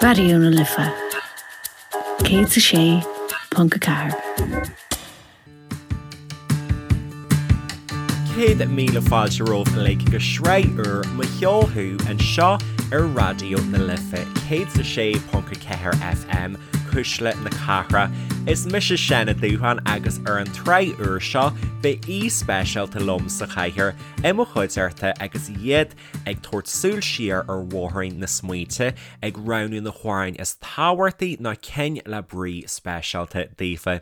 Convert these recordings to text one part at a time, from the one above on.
Raidió na Life 106.4. 100,000 fáilte romhaibh uilig go sraith úr Mo Cheol Thú anseo ar Raidió na Life 106.4 FM, Cuisle na Cathrach. Is mise Seán Ó Dúsháin agus ar an tsraith úr seo beidh aoi speisialta liom sa chathaoir i mo chuideachta agus iad ag tabhairt súil siar ar bhóithrín na smaointe, ag roghnú na hamhráin is tábhachtaí nó cinn le brí speisialta daofa.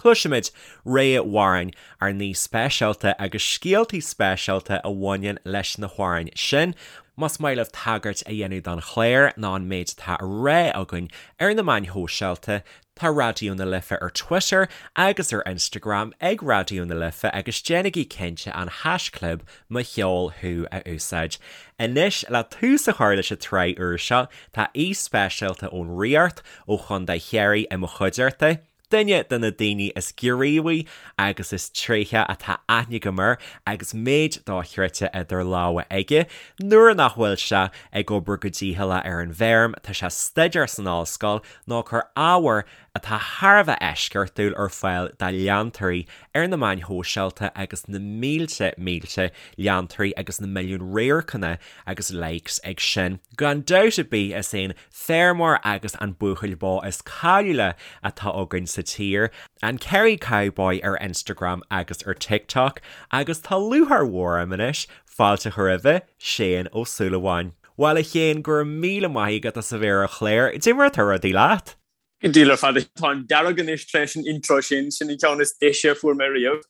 Cloisfimid rogha amhráin ár n-aoi speisialta agus scéaltaí speisialta a bhaineann leis na hamhráin sin. Más maith libh tagairt a dhéanamh don chlár nó an méid atá á rá againn ar na meáin shóisialta, Tá Raidió na Life ar Twitter agus ar Instagram ag Raidió na Life agus déanaigí cinnte an haischlib Mo Cheol Thú a úsáid. Anois, le tús a chur leis an tsraith úr seo, tá aoi speisialta ón Ríocht, ó Chontae Chiarraí i mo chuideachta, duine de na daoine is gníomhaí agus is tréithí atá aithne agam air agus méid dochreidte idir lámha aige. Nuair nach bhfuil sé ag obair go dícheallach ar an bhfeirm, tá sé ag staidéar san ollscoil nó ag cur ábhar atá thar a bheith eisceachtúil ar fáil dá leantóirí ar na meáin shóisialta agus na mílte mílte leantóirí agus na milliúin radharcanna agus likes ag sin. Gan dabht ar bith is é an feirmeoir agus an buachaill bó is cáiliúla atá againn sa tír, an Kerry Cowboy ar Instagram agus ar TikTok agus tá lúcháir mhór orm anois fáilte a chur roimhe, Shane Ó Súilleabháin. Bhuel a Shéain, go raibh míle maith agat as a bheith ar an chlár. Cad é mar atá rudaí leat? Go diail ar fad. Táim dearg anois tar éis an intro sin, sin an ceann is deise a fuair mé riamh.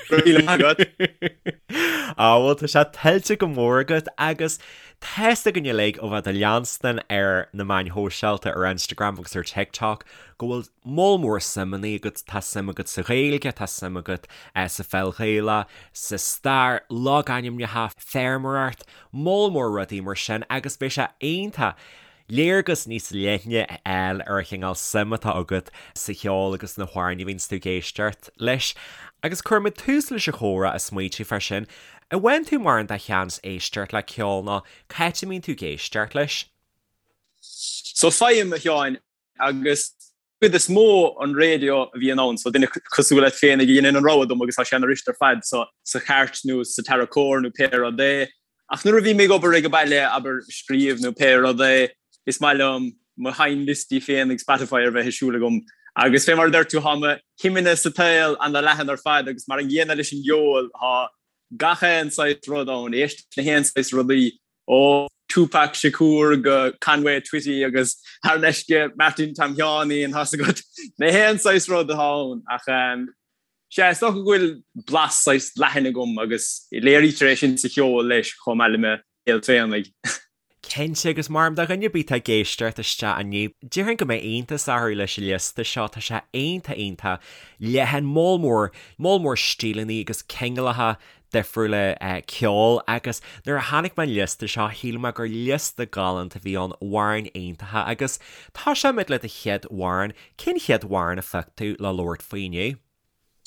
Go raibh míle maith agat. Á bhuel tá sé tuillte go mór agat agus tá's againn uilig ó bheith do leanstan ar na meáin shóisialta ar Instagram agus ar TikTok go bhfuil moll mór suimeanna agat, tá suim agat sa Ghaeilge, tá suim agat sa pheil Ghaelach, sa stair, logainmneacha, feirmeoireacht, moll mór rudaí mar sin agus beidh sé iontach léargas níos leithne a fháil ar an chineál suim atá agat sa cheol agus na hamhráin a bhíonns tú ag éisteacht leis. Agus cuirfimid tús leis an chomhrá ag smaoitiú fá sin. An bhfaigheann tú mórán de sheans éisteacht le ceol nó cá háit a mbíonn tú ag éisteacht leis? So faighim, a Sheáin, agus cuid is mó an raidió a bhíonn ann, so duine cosúil leat féin a dhéanann an rogha dom agus tá sé ana fhuirist ar fad, so sa chairt nó sa tarracóir nó pé rud é. Ach nuair a bhím ag obair ag an baile, abair, scríobh nó pé rud é, is maith liom mo sheinnliostaí féin ag Spotify ar bheith ag siúl agam. Agus fé mar a deir tú, tá mo shuimeanna sa tsaol ana leathan ar fad agus mar an gcéanna leis an gceol, tá gach aon saghas rud ann, éist le haon saghas rudaí Ó Tupac Shakur go Conway Twitty agus thar n-ais go Martin Tom Sheáinín, tá's agat, na haon saghas rud atá ann. Ach sea, is dócha go bhfuil blas saghas leathan agam agus léirítear é sin sa cheol leis chomh maith le mo shaol féinig. Cinnte, agus mar do dhuine ar bith atá ag éisteacht isteach inniu, déarfainn go mbeidh iontas orthu leis an liosta seo, tá sé iontach iontach leathan, moll mór, moll mór stíleanna agus cineálacha difriúla ceoil agus nuair a chonaic mé an liosta seo shíl mé gur liosta galánta a bhí ann, amhráin iontacha agus tosóimid le do chéad amhrán, cén chéad amhrán a phioc tú le labhairt faoi inniu?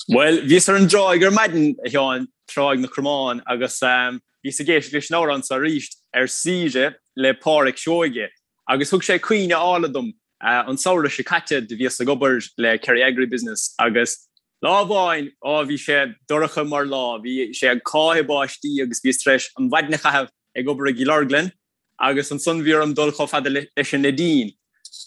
Bhuel, bhíos ar an dtráigh ar maidin, a Sheáin, Tráigh na Cromán, agus bhíos ag éisteacht leis an amhrán seo arís, Ar Saoire le Pádraic Seoige, agus thug sé cuimhne álainn dom. An samhradh seo caite do bhíos ag obair le Kerry Agribusiness agus Lá amháin, á, bhí sé dorcha mar lá, bhí sé ag cáitheadh báistí agus bhíos tar éis an mhaidin a chaitheamh ag obair i gCill Orglan agus ansan bhí orm dul chomh fada leis an Neidín.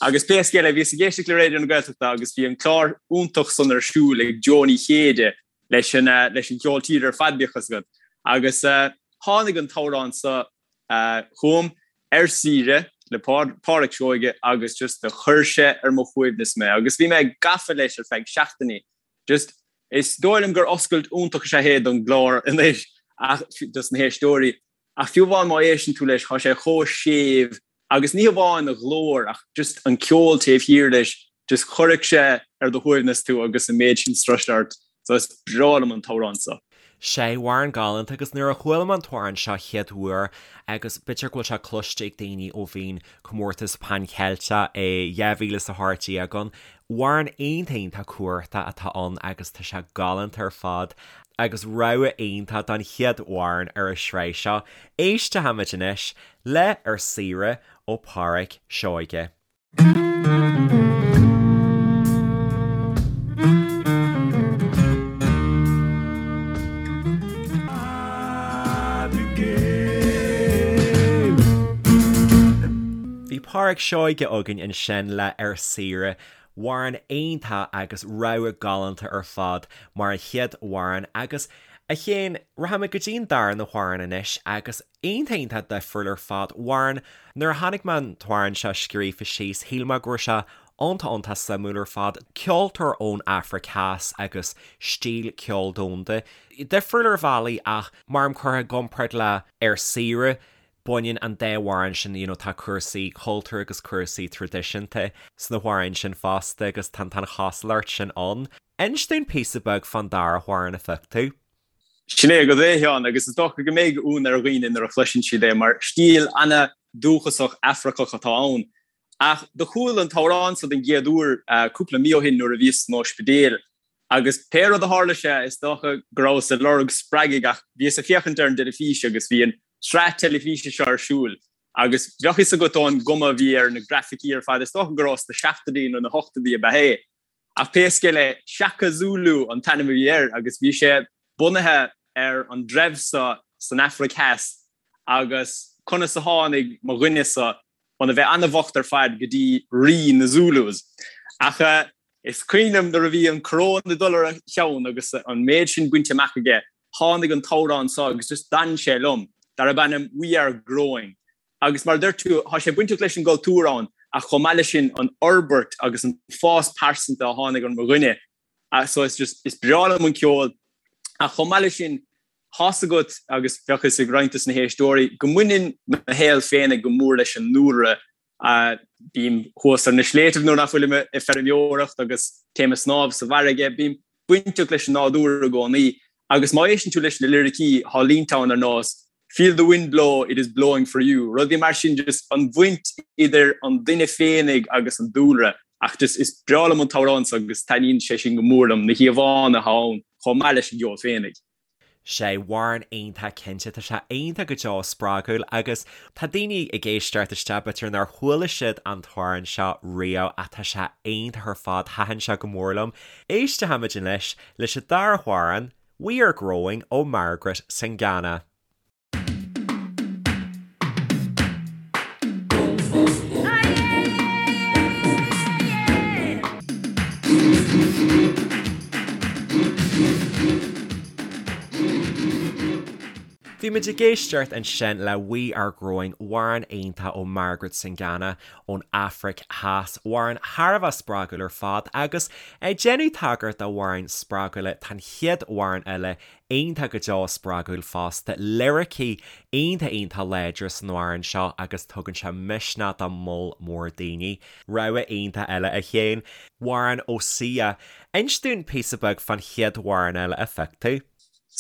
Agus pé scéal é, bhíos ag éisteacht le Raidió na Gaeltachta agus bhí an clár iontach san ar siúl ag Joe Ní Chéide leis an, leis an cheol tíre ar fad, bíodh fhios agat. Agus tháinig an t-amhrán so chugam, Ar Saoire le Pádraic Seoige agus just do chuir sé ar mo shuaimhneas mé agus bhí mé gafa leis ar feadh seachtainí. Just, is dóigh liom gur oscailt iontach is ea é don gclár anois ach, dos na héisteoirí, ach fiú amháin má éisteann tú leis, tá sé chomh séimh agus ní hamháin a ghlór ach just an ceol taobh thiar leis, just chuirfeadh sé ar do shuaimhneas tú agus an méid sin strus ort. So is breá liom an t-amhrán so. Sea, amhrán galánta agus nuair a chuala mé an t-amhrán seo chéad uair agus b'fhéidir go bhfuil sé cloiste ag daoine ó bhí an comórtas Pan Cheilteach i 2018 ann, amhrán iontach iontach cumhachtach atá ann agus tá sé galánta ar fad. Agus rogha iontach don chéad amhrán ar an sraith seo, éistfimid anois le Ar Saoire ó Pháraic Seoige. Bhí Páraic Seoige againn ansin le Ar Saoire. Amhrán iontach agus rogha galánta ar fad mar an chéad amhrán agus, a Chéin, rachaimid go dtí an darna hamhrán anois agus iontach iontach difriúil ar fad. Amhrán, nuair a chonaic mé an t-amhrán seo scríofa síos, shíl mé go raibh sé iontach iontach suimiúil ar fad. Ceoltóir ón Afraic Theas agus stíl ceoil domhanda. Difriúil ar bhealaí ach mar curtha i gcomparáid le Ar Saoire, baineann an dá amhrán sin, you know, tá cúrsaí cultúir agus cúrsaí traidisiúnta sna hamhráin sin fosta agus tá an chosúlacht sin ann. Inis dúinn píosa beag fán dara hamhrán a phioc tú. Sin é agat é, a Sheáin, agus is dócha go mbeidh ionadh ar dhaoine nuair a chloiseann siad é, mar stíl ana-dúchasach Afracach atá ann. Ach do chuala an t-amhrán so den gcéad uair cúpla mí ó shin nuair a bhíos san ospidéal Agus pé rud a tharla sé, is dócha go rabhas ag lorg spreagaidh ach bhíos ag féachaint ar an dteilifís agus bhí an tsraith teilifíse seo ar siúl agus bheadh fhios agat ón gcuma a bhí ar na grafaicí ar fad, is dócha go raibh sna seachtóidí nó na hochtóidí ab ea é. Ach pé scéal é, Shaka Zulu an t-ainm a bhí air agus bhí sé bunaithe ar an dtreibh seo san Afraic Theas agus conas a tháinig mo dhuine seo óna bheith an-bhocht ar fad go dtí rí na Zulus. Ach is cuimhin liom nuair a bhí an coróin ag dul ar a cheann agus an méid sin bainte amach aige, tháinig an t-amhrán seo agus just d'fhan sé liom, darb ainm We Are Growing. Agus mar a deir tú, tá sé bainteach leis an gcultúr ann ach chomh maith leis sin an fhorbairt agus an fás pearsanta a tháinig ar mo dhuine. So is just, is breá liom an ceol ach chomh maith leis sin, tá's agat agus bheadh fhios ag roinnt dos na héisteoirí go mbaineann mo shaol féinig go mór leis an ndúlra. Bím thuas ar na sléibhtibh nuair nach bhfuilim ag feirmeoireacht agus téim ag snámh sa bhfarraige. Bím bainteach leis an nádúr i gcónaí agus má éisteann tú leis na liricí, tá línte ann ar nós Feel the wind blow, it is blowing for you. Rudaí mar sin, just an bhaint idir an duine féinig agus an dúlra. Ach just is breá liom an t-amhrán so agus taitníonn sé sin go mór liom, na híomhánna atá ann chomh maith leis an gceol féinig. Sé amhrán iontach cinnte, tá sé iontach go deo spreagúil agus tá daoine ag éisteacht isteach b'fhéidir nár chuala siad an t-amhrán seo riamh ach tá sé iontach ar fad, thaitin sé go mór liom. Éistfimid anois leis an dara hamhrán, We Are Growing ó Margaret Singana. Bhí muid ag éisteacht ansin le We Are Growing, amhrán iontach ó Margaret Singana ón Afraic Theas, amhrán thar a bheith spreagúil ar fad agus ag déanamh tagairt d'amhráin spreagúla, tá an chéad amhrán eile iontach go deo spreagúil fosta, liricí iontach iontach láidir san amhrán seo agus tugann sé misneach do moll mór daoine. Rogha iontach eile a Chéin. Amhrán ó Sia. Inis dúinn píosa beag fán chéad amhrán eile a phioc tú.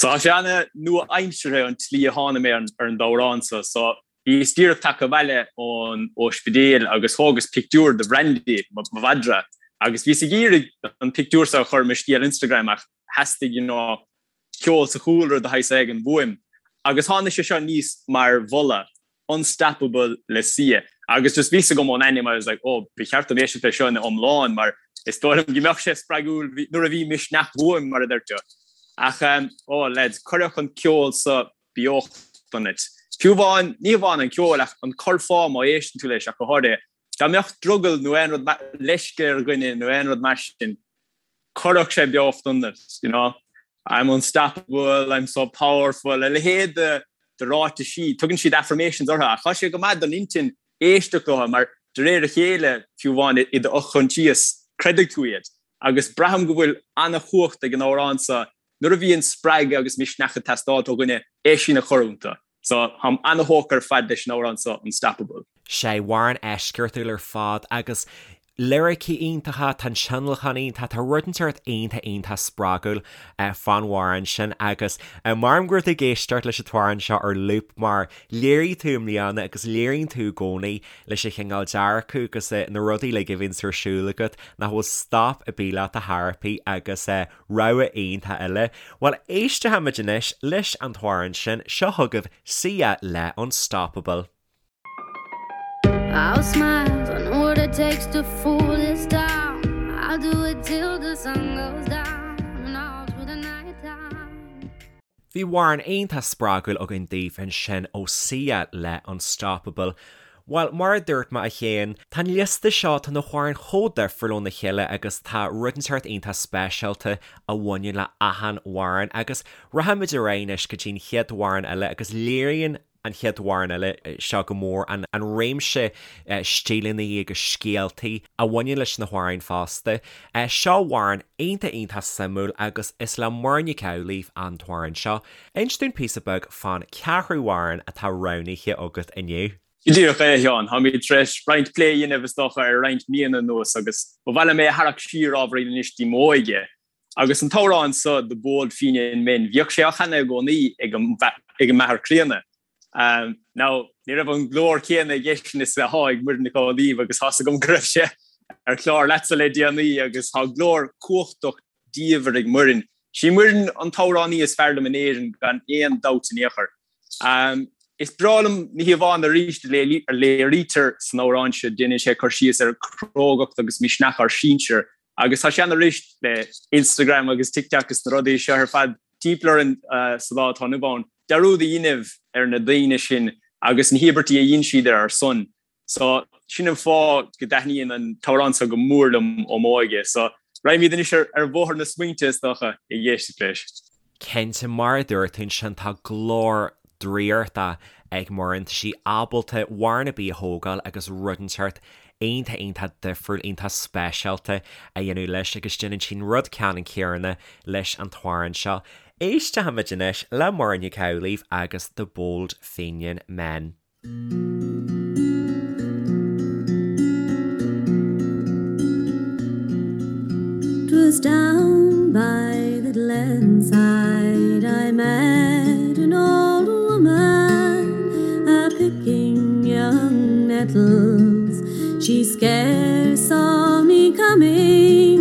So tá sé ana-nua-aimseartha an tslí a tháinig mé ar an amhrán seo. So bhíos díreach tagtha abhaile ón ospidéal agus thógas pictiúr de Bhrandy, mo mhadra, agus bhíos ag iarraidh an pictiúr seo a chur i mo scéal Instagram ach theastaigh you know ceol sa chúlra de shaghas éigin uaim. Agus tháinig sé seo aníos mar mholadh, Unstoppable le Sia. Agus just bhí fhios agam ón ainm, I was like, oh, ba cheart dom éisteacht leis seo ina iomlán mar is dóigh liom go mbeadh sé spreagúil nuair a bhí misneach uaim, mar a deir tú. Ach, oh lads, cuirfeadh an ceol seo beocht ionat. Fiú amháin, ní hamháin an ceol ach an curfá má éisteann tú leis ach go háirithe, dá mbeadh drogall nó aon rud leisce ar dhuine nó aon rud mar sin, Cuirfeadh sé beocht ionat, you know. I'm unstoppable, I'm so powerful, a leithéid de de ráitisí, tugann siad affirmations orthu ach tá sé go maith don intinn éisteacht leo mar de réir a chéile, fiú amháin i do fhochoinsias, creidfidh tú iad. Agus braithim go bhfuil an-chumhacht ag an amhrán seo nuair a bhíonn spreagadh agus misneach ag teastáil ó dhuine é sin a chur iontu. So, táim an-thógtha ar fad leis an amhrán seo, Unstoppable. Sé amhrán eisceachtúil ar fad agus. Liricí iontacha, tá an tionlacan iontach, tá rud inteacht iontach iontach spreagúil fán amhrán sin agus maram go raibh tú ag éisteacht leis an t-amhrán seo ar loop mar léirigh tú i mbliana agus léiríonn tú i gcónaí leis an chineál dearcadh agus na rudaí uilig a bhíonns ar siúl agat nach bhfuil stop ar bith leat a thairpí agus rogha iontach eile. Bhuel éistfimid anois leis an t-amhrán sin, seo chugaibh Sia le Unstoppable. I'll smile, I know what it takes to fool this town. I'll do it till the sun goes down and all through the night time. Bhí amhrán iontach spreagúil againn daoibh ansin ó Sia le Unstoppable. Bhuel, mar a dúirt mé a Shéain, tá an liosta seo, tá na hamhráin chomh difriúil óna chéile agus tá rud inteacht iontach speisialta a bhaineann le achan amhrán agus rachaimid ar aghaidh anois go dtí an chéad amhrán eile agus léiríonn an chéad amhrán eile seo go mór, an réimse stíleanna agus scéaltaí a bhaineann leis na hamhráin fosta. Seo amhrán iontach iontach suimiúil agus is le Muireann Nic Amhlaoibh an t-amhrán seo. Inis dúinn píosa beag fán cheathrú amhrán atá roghnaithe agat inniu. Go díreach é, a Sheáin. Táimid tar éis roinnt plé a dhéanamh, is dócha, ar roinnt míonna anuas agus ba mhaith liom é a tharrac siar ábhairín anois dtí m'óige. Agus an t-amhrán so, The Bold Fenian Men, bhíodh sé á chanadh i gcónaí ag an m'athair críonna. Now, ní raibh an glór céanna aigesean is atá ag Muireann Nic Amhlaoibh agus tá's agam go raibh sé ar chlár leatsa le déanaí agus tá glór cumhachtach diamhair ag Muireann. Sí Muireann an t-amhránaí is fearr liom in Éirinn gan aon dabht in aon chor. Is breá liom na híomhánna arís a léirítear san amhrán seo, déanann sé cur síos ar chrógacht agus misneach ár sinsear Agus tá sé ann arís le Instagram agus TikTok is na rudaí seo ar fad timpeall orainn sa lá atá inniu ann, dearúd a dhéanamh ar na daoine sin agus na híobairtí a dhein siad ar ár son. So, sin an fáth go dtaitníonn an t-amhrán seo go mór liom ó m'óige. So, raghaimid anois ar bhóthar na smaointe, is dócha, ag éisteacht leis. Cinnte, mar a dúirt tú ansin, tá glór draíochta ag Muireann, tá sí ábalta amhrán ar bith a thógáil agus rud inteacht iontach iontach difriúil, iontach speisialta a dhéanamh leis agus déanann sí an rud ceannann céanna leis an t-amhrán seo. Éistfimid anois le Muireann Nic Amhlaoibh agus The Bold Fenian Men. 'Twas down by the glenside I met an old woman a picking young nettles. She scarce saw me coming.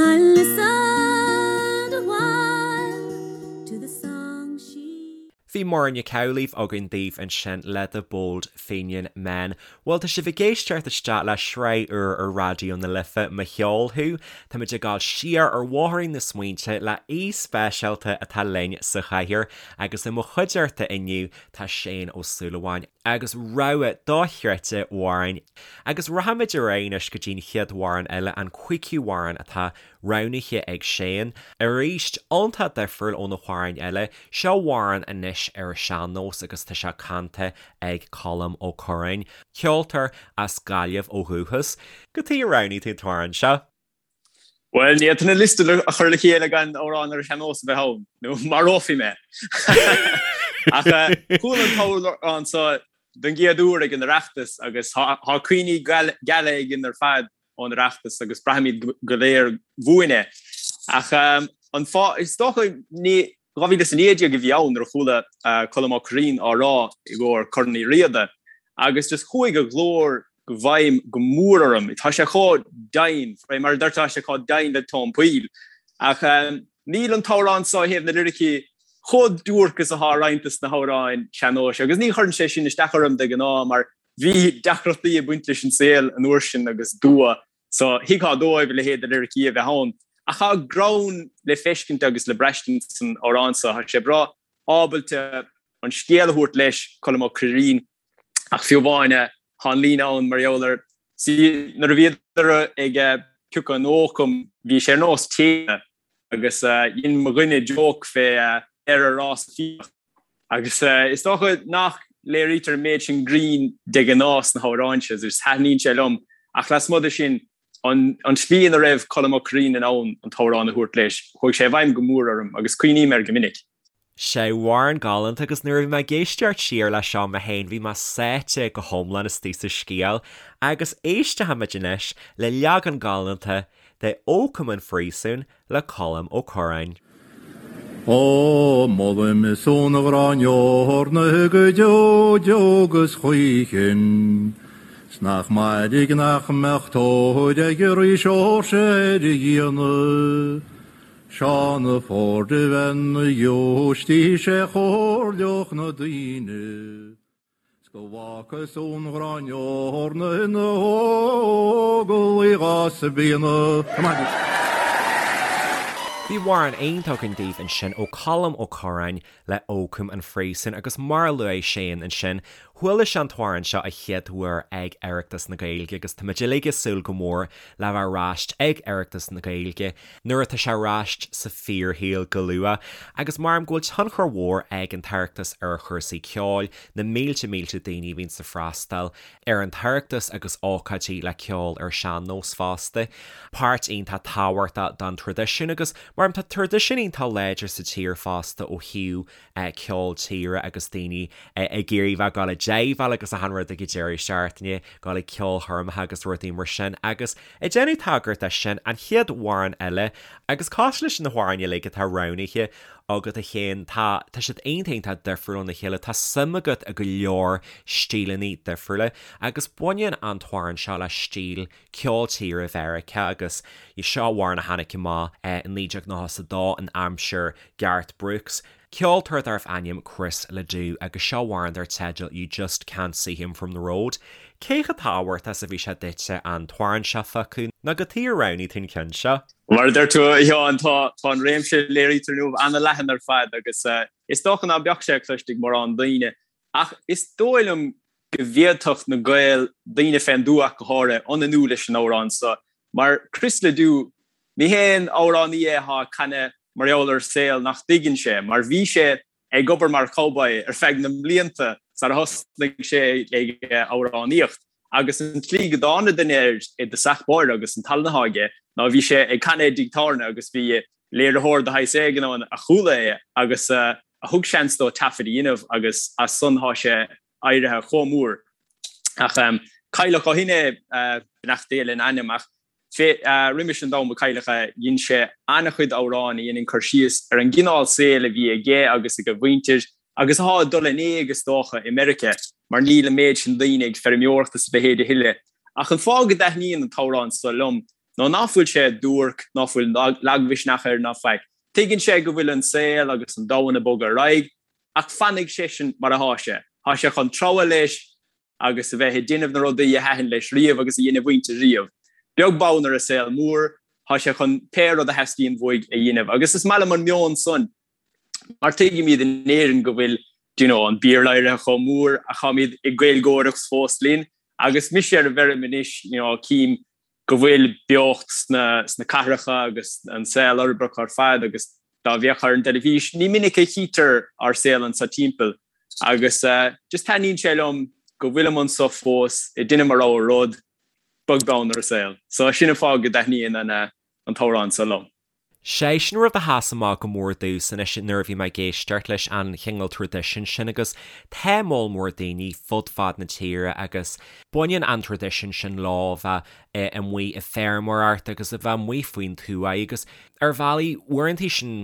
I listened a while to the song she. Bhí Muireann Nic Amhlaoibh againn daoibh ansin le The Bold Fenian Men. Bhuel, tá sibh ag éisteacht isteach le sraith úr ar Raidió na Life, Mo Cheol Thú. Táimid ag dul siar ar bhóithrín na smaointe le aoi speisialta atá linn sa chathaoir agus i mo chuideachta inniu tá Shane Ó Súilleabháin agus rogha dochreidte amhrán. Agus rachaimid ar aghaidh anois go dtí an chéad amhrán eile, an cúigiú amhrán atá roghnaithe ag Shane. Arís, iontach difriúil ó na hamhráin eile, seo amhrán anois ar an sean-nós agus tá sé canta ag Colm Ó Curráin, ceoltóir as Gaillimh ó dhúchas. Cad chuige ar roghnaigh tú an t-amhrán seo? Bhuel, ní fhéadfainn an liosta a chur le chéile gan amhrán ar an sean-nós a bheith ann, nó marófaí mé. Ach chuala an t-amhrán seo don gcéad uair ag an Oireachtas agus tá cuimhní geala againn ar fad ón Oireachtas agus braithimid go léir uainn é. Ach an fáth, is dócha, ní 2019 a bhí ann nuair a chuala Colm Ó Curraoin á rá i gcomhair Corn Uí Riada agus just chuaigh a ghlór i bhfeidhm go mór orm. Tá sé chomh doimhin, mar a deirtear, tá sé chomh doimhin le tóin poill. Ach níl an t-amhrán seo ó thaobh na liricí chomh duairc is atá roinnt de na hamhráin sean-nóis agus ní chuireann sé sin isteach orm de ghnáth mar Bhí deacrachtaí ag baint leis an saol an uair sin agus dua, so thuigfeá dóibh a leithéid de liricí a bheith ann. Ach tá greann le feiscint agus le braistint san amhrán seo. Tá sé breá ábalta an scéal a thabhairt leis, Colm Ó Curraoin, ach fiú amháin tá an líne ann mar gheall ar, see, nuair a bhíodar ag piocadh an ócaim, bhí sé ar nós tine agus dhein mo dhuine joke fé ar a rás fiach. Agus is dócha nach léirítear an méid sin grinn de ghnáth sna hamhráin seo, agus taitníonn sé liom, ach lasmuigh de sin, an tslí ina raibh Colm Ó Curraoin in ann an t-amhrán a thabhairt leis, chuaigh sé i bhfeidhm go mór orm agus cuimhním air go minic. Sé amhrán galánta agus nuair a bhí mé ag éisteacht siar leis seo mé féin bhí mé sáite go hiomlán istigh sa scéal agus éistfimid anois le leagan galánta de Ó Cum an Phríosúin le Colm Ó Curráin. Ó, molaim son a ghráin eorna go deo deo 'gus choíchin, 's nach mairg nach mbeadh tóir ag Rí Seoirse ar a fhíona. Seán a' Ford a bheith 'na ghiúistís a chomhairleodh na daoine 's go bhfágfadh ón ghráin eorna ina óglaigh dhá spíonadh. Bhí amhrán iontach againn daoibh ansin ó Colm Ó Curráin le Ó Cum an Phríosúin agus mar a luaigh Shane ansin, chuala sé an t-amhrán seo a chéad uair ag Oireachtas na Gaeilge agus táimid uilig ag súil go mór le bheith ar ais ag Oireachtas na Gaeilge nuair atá sé ar ais sa fíorshaol go luath agus maram go bhfuil tionchar mhór ag an tOireachtas ar chúrsaí ceoil, na mílte mílte daoine a bhíonns ag freastal ar an tOireachtas agus ócáidí le ceol ar sean-nós fosta. Páirt iontach tábhachtach don traidisiún agus maram tá traidisiún iontach láidir sa tír fosta ó thaobh ceol tíre agus daoine ag iarraidh bheith ag dul ag jaiveáil agus achan rud ag an deireadh seachtaine, dul ag ceolchoirmeacha agus rudaí mar sin agus ag déanamh tagairt de sin, an chéad amhrán eile agus cosúil leis na hamhráin uilig atá roghnaithe agat a Shéain, tá, tá siad iontach iontach difriúil óna chéile, tá suim agat i go leor stíleanna difriúla agus baineann an t-amhrán seo le stíl ceol tíre Mheiriceá agus seo amhrán a tháinig amach i 1992 in aimsir Garth Brooks, ceoltóir darbh ainm Chris LeDoux agus seo amhrán dar teideal You Just Can't See Him From The Road. Cé chomh tábhachtach is a bhí sé duitse an t-amhrán seo a phiocadh nó cad chuige ar roghnaigh tú an ceann seo? Mar a deir tú, a Sheáin, tá an réimse a léirítear inniu an-leathan ar fad agus is dócha ná beadh sé cloiste ag mórán daoine. Ach is dóigh liom go bhféadfadh na Gaeil, daoine fén dtuath ach go háirithe, ionannú leis an amhrán seo. Mar Chris LeDoux, ní haon amhránaí é atá ag canadh mar gheall ar saol nach dtuigeann sé, mar bhí sé ag obair mar chowboy ar feadh na mblianta sar a thosnaigh sé ag amhránaíocht. Agus an tslí go dtáinig duine air i dtosach báire agus an tallann atá aige ná bhí sé ag canadh i dtigh tábhairne agus bhí léiritheoir de shaghas éigin ann a chuala é agus a thug seans dó taifead a dhéanamh agus as san thá sé éirithe chomh mór. Ach cailleadh ó shin é, beannacht Dé lena anam, ach roimis an am a cailleadh é, dhein sé an-chuid amhrán a dheineann cur síos ar an gcineál saoil a bhí aige agus ag a mhuintir agus athá ag dul in éag is dócha i Meiriceá mar níl an méid sin daoine ag feirmeoireacht is a leithéid a thuilleadh. Ach an fáth go dtaitníonn an t-amhrán so liom ná ná fuil sé duairc, ná fuil lagmhisneach air ná faic. Tuigeann sé go bhfuil an saol agus an domhan ag bogadh ar aghaidh ach fanfaidh seisean mar athá sé. Thá sé chun treabhadh leis agus a bheith ag déanamh na rudaí a thaitin leis riamh agus a dhein a mhuintir riamh. Beag beann ar an saol mór, thá sé chun pé rud a theastaíonn uaidh a dhéanamh. Agus is maith liom an meon san mar tuigimid in Éirinn go bhfuil do you know, an Béarla éirithe chomh mór ach táimid ag Gaeilgeoireacht fós linn. Agus mise ar an bhfeirm anois, you know, cím go bhfuil beocht sna, sna cathracha agus an saol uirbeach ar fad agus dá bhféachfá ar an dteilifís, ní minic a chítear ár saol anso timpeall agus just taitníonn sé liom go bhfuilim anso fós ag déanamh mo rogha rud, beag beann ar an saol. So sin an fáth go dtaitníonn an an t-amhrán so liom. Sé sin rud a sheas amach go mór domhsa anois nuair a bhí mé ag éisteacht leis an chineál traidisiún sin agus tá moll mór daoine fud fad na tíre agus baineann an traidisiún sin leo a bheith amuigh ag feirmeoireacht agus a bheith amuigh faoin tuath agus ar bhealaí uaireanta sin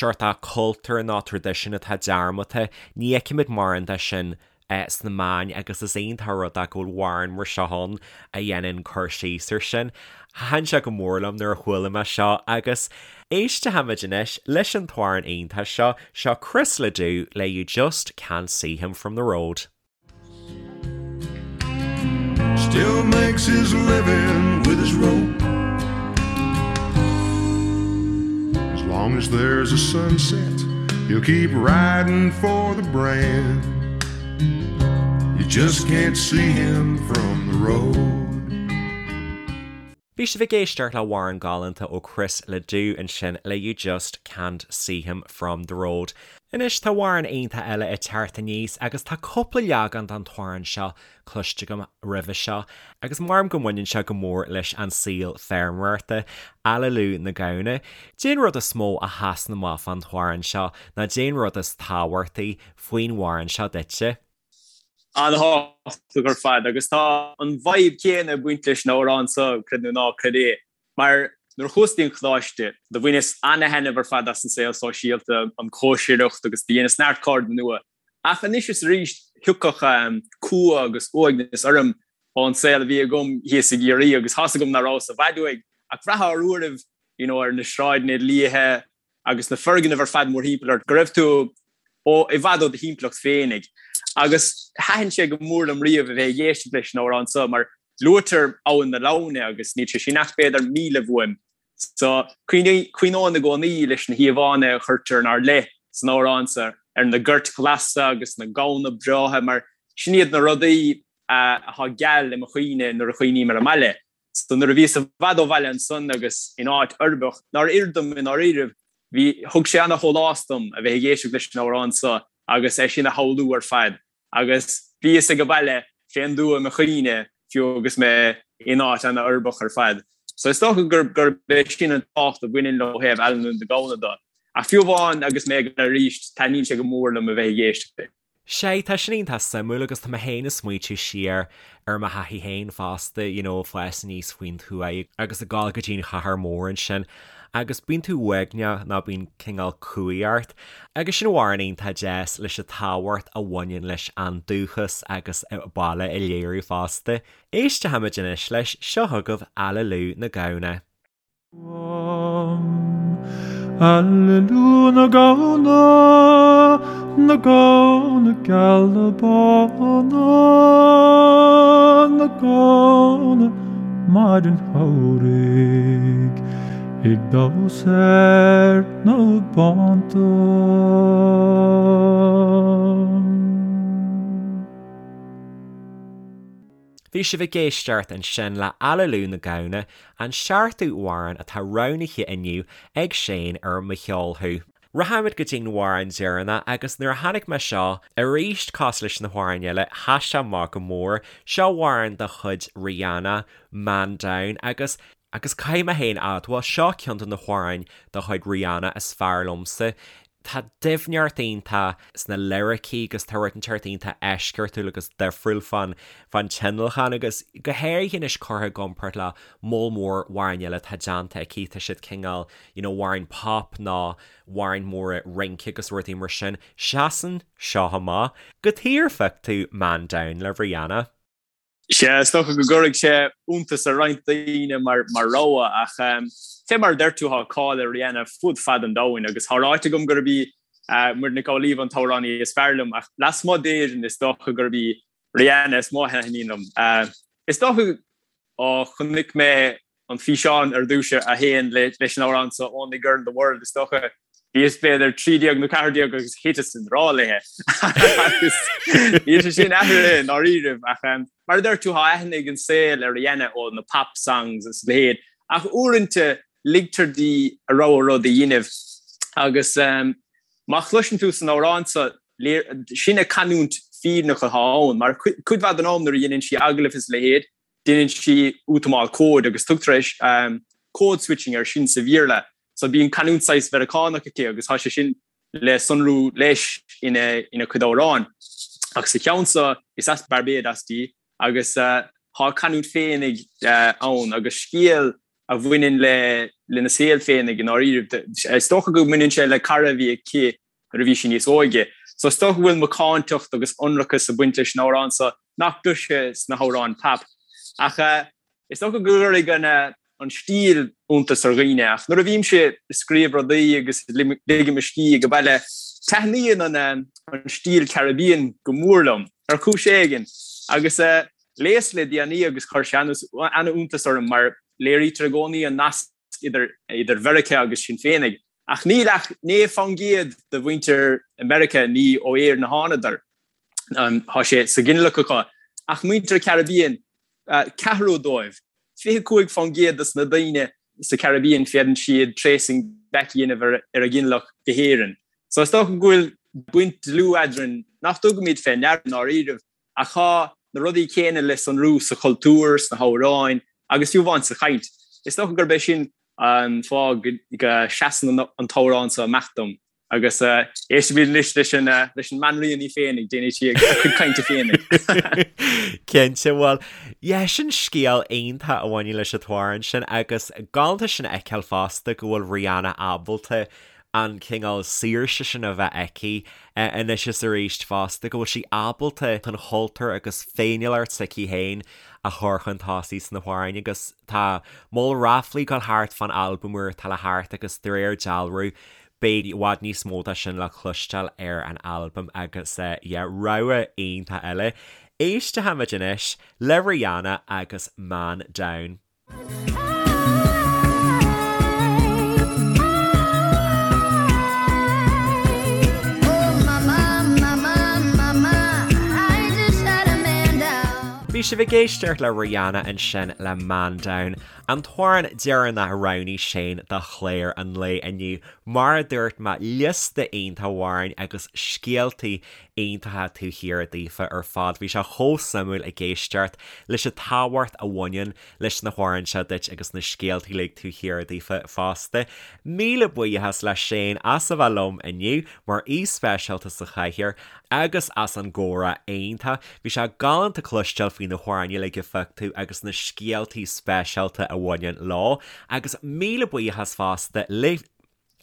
seort cultúr nó traidisiún atá dearmadta, ní fheicimid mórán de sin sna meáin agus is iontach an rud é go bhfuil amhrán mar seo ann a dhéanann cur síos ar sin. Thaitin sé go mór liom nuair a chuala mé seo agus éistfimid anois leis an t-amhrán iontach seo, seo Chris LeDoux le You Just Can't See Him From The Road. Still makes his living with his rope As long as there's a sunset He'll keep riding for the brand You just can't see him from the road. Bhí sibh ag éisteacht le hamhrán galánta ó Chris LeDoux ansin le You Just Can't See Him From The Road. Anois tá amhrán iontach eile ag teacht aníos agus tá cúpla leagan den t-amhrán seo cloiste agam roimhe seo agus maram go mbaineann sé go mór leis an saol feirmeoireachta, Aililiú na Gamhna. Cén rud is mó a sheasann amach fán t-amhrán seo nó cén rud is tábhachtaí faoin amhrán seo duitse? An-thábhachtach ar fad agus tá an vibe céanna ag baint leis an amhrán seo, creid nó ná creid é, mar nuair a chuas dtí an choláiste, do bhaineas ana-thaitneamh ar fad as an saol sóisialta, an chóisireacht agus do dheineas neart cairde nua. Ach anois is arís thiocfadh cumha agus uaigneas orm ón saol a bhí agam thíos i gCiarraí agus tá's agam nach rabhas i bhfad uaidh ach bhraithfeá ar uairibh you know ar na sráideanna liatha agus na foirgnimh ar fad mórthimpeall ort, go raibh tú ó i bhfad ó do thimpeallacht féinig. Agus thaitin sé go mór liom riamh a bheith ag éisteacht leis an amhrán seo mar luaitear Abhainn na Lamhna agus níl sé sin ach b'fhéidir míle uaim. So cuimhneoinn i gcónaí leis na híomhánna a chuirtear inár leith san amhrán seo ar na goirt ghlasa agus na gamhna breátha mar sin iad na rudaí atá geal i mo chuimhne nuair a chuimhním ar an mbaile. So nuair a bhíos i bhfad ó bhaile ansan agus in áit uirbeach, nár oir dom i ndáiríribh, bhí, thug sé ana-shólás dom a bheith ag éisteacht leis an amhrán so agus é sin a shamhlú ar fad. Agus bhíos ag baile fén dtuath i mo chuimhne fiú agus mé in áit ana-uirbeach ar fad. So is dócha gurb, gurb é sin an tábhacht a bhaineann leo ó thaobh Aililiú na Gamhna de. Ach fiú amháin agus mé ag baile arís, taitníonn sé go mór liom a bheith ag éisteacht leis. Sea, tá sin iontach suimiúil agus tá mé féin ag smaoitiú siar ar mo thaithí féin fosta, you know, ag fás aníos faoin tuath agus ag dul go dtí an chathair mhór ansin agus bíonn tú uaigneach nó bíonn cineál cumhaidh ort. Agus sin amhrán iontach deas leis an tábhacht a bhaineann leis an dúchas agus baile a léiriú fosta. Éistfimid anois leis, seo chugaibh Aililiú na Gamhna. Aililiú na gamhna, na gamhna geala bána, na gamhna maidin shamhraidh ag damhsa ar na bánta. Bhí sibh ag éisteacht ansin le Aililiú na Gamhna, an seachtú amhrán atá roghnaithe inniu ag Shane ar Mo Cheol Thú. Rachaimid go dtí'n amhrán deireanach agus nuair a chonaic mé seo, arís cosúil leis na hamhráin eile, sheas sé amach go mór. Seo amhrán de chuid Rihanna, Man Down, agus agus caithfidh mé féin a admháil, seo ceann de na hamhráin de chuid Rihanna is fearr liomsa. Tá doimhneacht iontach sna liricí agus tá rud inteacht iontach eisceachtúil agus difriúil fán fán tionlacan agus go háirithe anois curtha i gcomparáid le moll mór amhráin eile atá déanta aici, tá siad cineál you know amhráin pop nó amhráin móra rince agus rudaí mar sin. Seasann seo amach. Cad chuige ar phioc tú Man Down le Rihanna. Sea, is dócha go gcuirfidh sé iontas ar roinnt daoine mar rogha ach fé mar a deir tú tá cáil ar Rihanna fud fad an domhain agus tá ráite agam gurb í Muireann Nic Amhlaoibh an t-amhránaí is fearr liom ach lasmuigh d'Éirinn is dócha gurb í Rihanna is mó a thaitníonn liom. Is dócha ó chonaic mé an físeán ar dtús a théann leis an amhrán seo Only Girl in the World, is dócha. Bhíos b'fhéidir 13 nó 14 agus thiteas i ngrá léi. Agus níl sé sin athraithe i ndáiríribh ach mar a deir tú tá aithne ag an saol ar Rihanna ó na pop songs is a leithéid ach uaireanta ligtear di a rogha rud a dhéanamh agus má chloiseann tú san amhrán seo sin a canúint fírinneach atá ann mar cuid mhaith den am nuair a dhéanann sí agallaimh is a leithéid Déanann sí útamáil cóid agus tugtar code switching air sin sa Bhéarla. So bíonn canúint saghas Mheiriceánach aici agus tá sé sin le sonrú leis ina cuid amhrán. Ach sa cheann seo is as Barbados di agus tá a canúint féinig ann agus scéal a bhaineann le lena saol féinig i ndáiríribh. Is dócha go mbaineann sé le cara a bhí aici nuair a bhí sí níos óige. So is dócha go bhfuil macántacht agus ionracas ag baint leis an amhrán seo nach gcloisfeá sna hamhráin pop. Ach is dócha go gcuirfidh an an stíl iontas ar dhaoine. Ach nuair a bhímse ag scríobh rudaí agus ag ligint mo scíth ag baile, taitníonn an an stíl Caribbean go mór liom, ar chúis éigin. Agus léas le déanaí agus chuir sé an-iontas orm mar léirítear i gcónaí an nasc idir idir Mheiriceá agus sinn féinig. Ach níl ach 9% de mhuintir Mheiriceá ní ó Éirinn a thánadar. Tá sé sa ghinealach acu. Ach muintir Caribbean, ceathrú dóibh. 25% dos na daoine sa Caribbean féadann siad tracing back a dhéanamh ar a ghinealach go hÉirinn. So is dócha go bhfuil baint dlúth eadrainn nach dtugaimid fé ndeara i ndáiríribh ach tá na rudaí céanna le sonrú sa chultúr, sna hamhráin agus fiú amháin sa chaint. Is dócha gurb é sin an fáth go seasann an t-amhrán seo amach dom. Agus éistfimid anois leis an leis an mbanríon í féin ag déanamh sí a cuid cainte féin. Cinnte, bhuel, yeah, sin scéal iontach a bhaineann leis an t-amhrán sin agus galánta sin a fheiceáil fosta go bhfuil Rihanna ábalta an cineál saoirse sin a bheith aici anois is arís fosta, go bhfuil sí ábalta an chultúr agus féiniúlacht s'aici féin a chur chun tosaigh sna hamhráin agus tá moll ráflaí ag dul thart fán albam úr atá le theacht agus de réir dealraimh Beidh i bhfad níos mó de sin le cloisteáil ar an albam agus yeah, rogha iontach eile. Éistfimid anois le Rihanna agus Man Down. Bhí sibh ag éisteacht le Rihanna ansin le Man Down. An t-amhrán deireanach a roghnaigh Shane do chlár an lae inniu, mar a dúirt mé, liosta iontach amhráin agus scéaltaí iontacha taobh thiar daofa ar fad. Bhí sé chomh suimiúil ag éisteacht leis an tábhacht a bhaineann leis na hamhráin seo duit agus na scéaltaí uilig taobh thiar daofa fosta. Míle buíochas le Shane as a bheith liom inniu mar aoi speisialta sa chathaoir agus as an gcomhrá iontach. Bhí sé galánta cloisteáil faoi na hamhráin uilig a phioc tú agus na scéaltaí speisialta a bhaineann leo. Agus míle buíochas fosta libh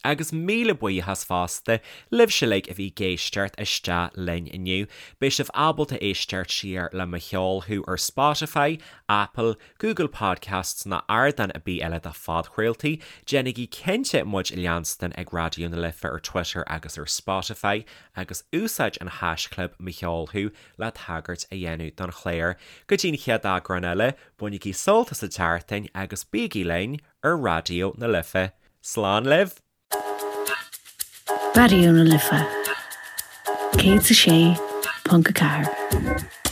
Agus míle buíochas fosta libhse uilig a bhí ag éisteacht isteach linn inniu. Beidh sibh ábalta éisteacht siar le Mo Cheol Thú ar Spotify, Apple, Google Podcasts ná ardán ar bith eile do phodchraoltaí. Déanaigí cinnte muid a leanstan ag Raidió na Life ar Twitter agus ar Spotify agus úsáid an haischlib Mo Cheol Thú le tagairt a dhéanamh don chlár. Go dtí an chéad eagrán eile, bainigí sult as an tseachtain agus bígí linn ar Raidió na Life. Slán libh! Raidió na Life 106.4.